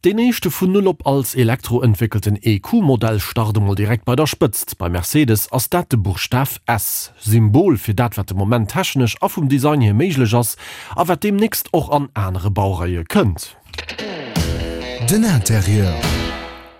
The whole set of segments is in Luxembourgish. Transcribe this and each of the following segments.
Deen éischte vun Null op als Elektro entwéckelten EQ-Modell start emol direkt bei der Spëtzt. Bei Mercedes ass dat de Buchstaf S, Symbol fir dat wat de Moment technesch a vum Design hier méiglech ass a wat deemnächst och an anere Baureie kënnt. Den Interieur.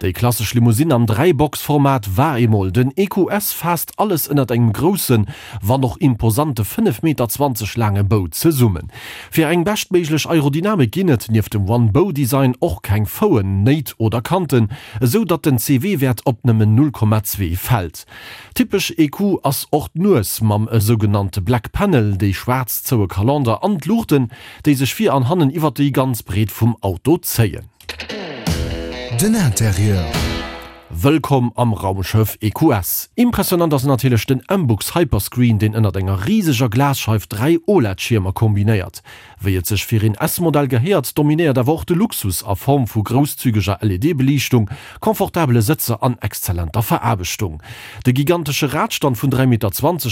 Déi klassesch Limousine am Dräibox-Format war eemol. Den EQS faasst alles ënnert engem groussen, wann och imposante 5,20 Meter laange Bou zesummen. Fir eng beschtméiglech Aerodynamik ginn et, nieft dem One-Bow-Design, och keng Fouen, Néit oder Kanten, esou datt den CW-Wäert op nëmmen 0,2 fält. Typesch EQ ass och d'Nues mam esougenannte Black Panel, déi schwaarz zoue Kalender an d'Luuchten, déi sech vir an hannen iwwer déi ganz Breet vum Auto zéien. Den Interieur. Wëllkomm am Raumschëff EQS. Impressionant ass natierlech den MBUX Hyperscreen, deen ënnert enger riseger Glasscheif 3 OLED-Schiermer kombinéiert. Wéi et sech fir een S-Modell gehéiert, dominéiert awer och de Luxus a Form vu grousszügeger LED-Beliichtung, confortabele Sëtzer an exzellenter Veraarbechtung. De gigantesche Radstand vun 3,20 Meter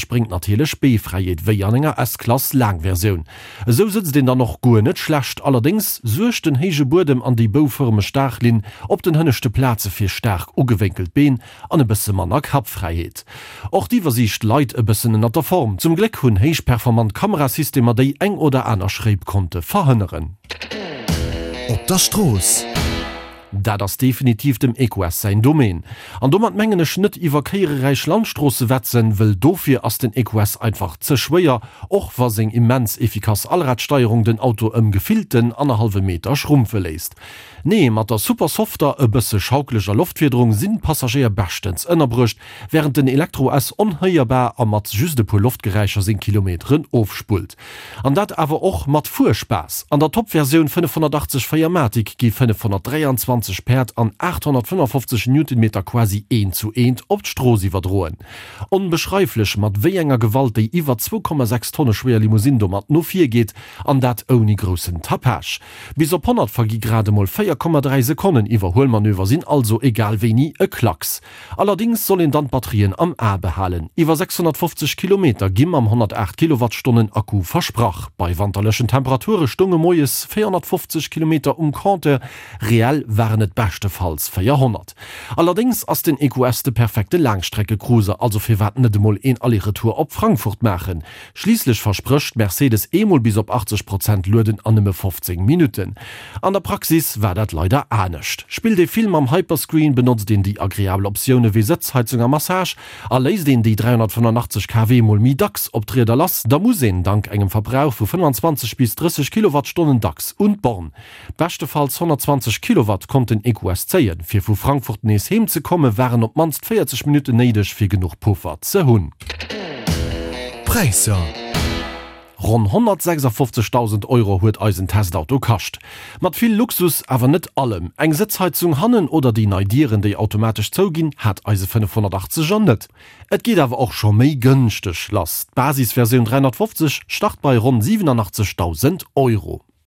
bréngt natierlech Beefräiheet, wéi an enger S-Klass Laangversioun. Esou sëtzt een dann och guer net schlecht, allerdéngs suergt den héije Buedem an déi boufërmeg Daachlinn op den hënneschte Plaze fir staark ugewénkelt Been an e bësse manner Kappfräiheet. Och d'Iwwersiicht leit e bëssen ënnert der Form. Zum Gléck hunn héich performant Kamerasystemer déi eng oder aner Schréip konnte verhënneren. Op der Strooss. Dat ass definitiv dem EQS säin Domaine. An domat mengen ech net iwwer kéiereräich Landstroosse wetzen, wëll dofir ass den EQS einfach ze schwéier, och wa seng immens efficace Allradsteierung den Auto ëm gefillten annerhallwe Meter schrumpfe léisst. Nee, mat der super softer, e bësse schaukeleger Loftfiederung sinn d'Passagéier beschtens ënnerbruecht, wärend den Elektro-S onhéierbar a mat just e puer Loftgeräischer seng Kilometeren ofspullt. An dat awer och mat Fuerspaass. An der Top-Versioun 580 4MATIC gi 523 Päerd an 855 Newtonmeter quasi eent zu eent op d'Strooss iwwerdroen. Onbeschreiflech, mat wéi enger Gewalt déi iwwer 2,6 Tonne schwéier Limousine domat no vir geet, an dat ouni groussen Tapage. Bis op 100 vergi grad emol 4,3 Sekonnen, Iwwerhuelmanöver sinn also egal wéini e Klacks. Allerdings soll een dann d'Batterien am A behalen. Iwwer 650 Kilometer gi mam 108 Kilowattstonnen Akku versprach. Bei wanterlechen Temperature stounge moies 450 Kilometer um Compteur, reell waren et beschtefalls 400. Allerdéngs ass den EQS de perfekte Laangstreckecruiser, also firwat net emol een Aller-Retour op Frankfurt maachen? Schliisslech versprécht Mercedes eemol bis op 80 Prozent lueden an nëmme 15 Minutten. An der Praxis war dat leider anescht. Spillt ee vill mam Hyperscreen, benotzt een déi agreabel Optioune wéi Sëtzheizung a Massage a léisst een déi 385 kW mol méi dacks op d'Rieder lass, da muss een dank engem Verbrauch vu 25 bis 30 Kilowattstonnen dacks un d'Born. Beschtefalls 120 Kilowatt konnt den EQS zéien. Fir vu Frankfurt nees heem ze komme waren op d'mannst 40 Minutten néideg fir genuch Puffer ze hunn. Präisser. Ronn 156.000 Euro huet eisen Testauto kascht. Mat vill Luxus, awer net allem. Eng Sëtzheizung hannen oder déi nei Dieren déi automatesch zouginn hat eise 580 er net. Et geet awer och scho méi gënschteg lass. D'Basisversioun 350 start bei ronn 87.000 Euro.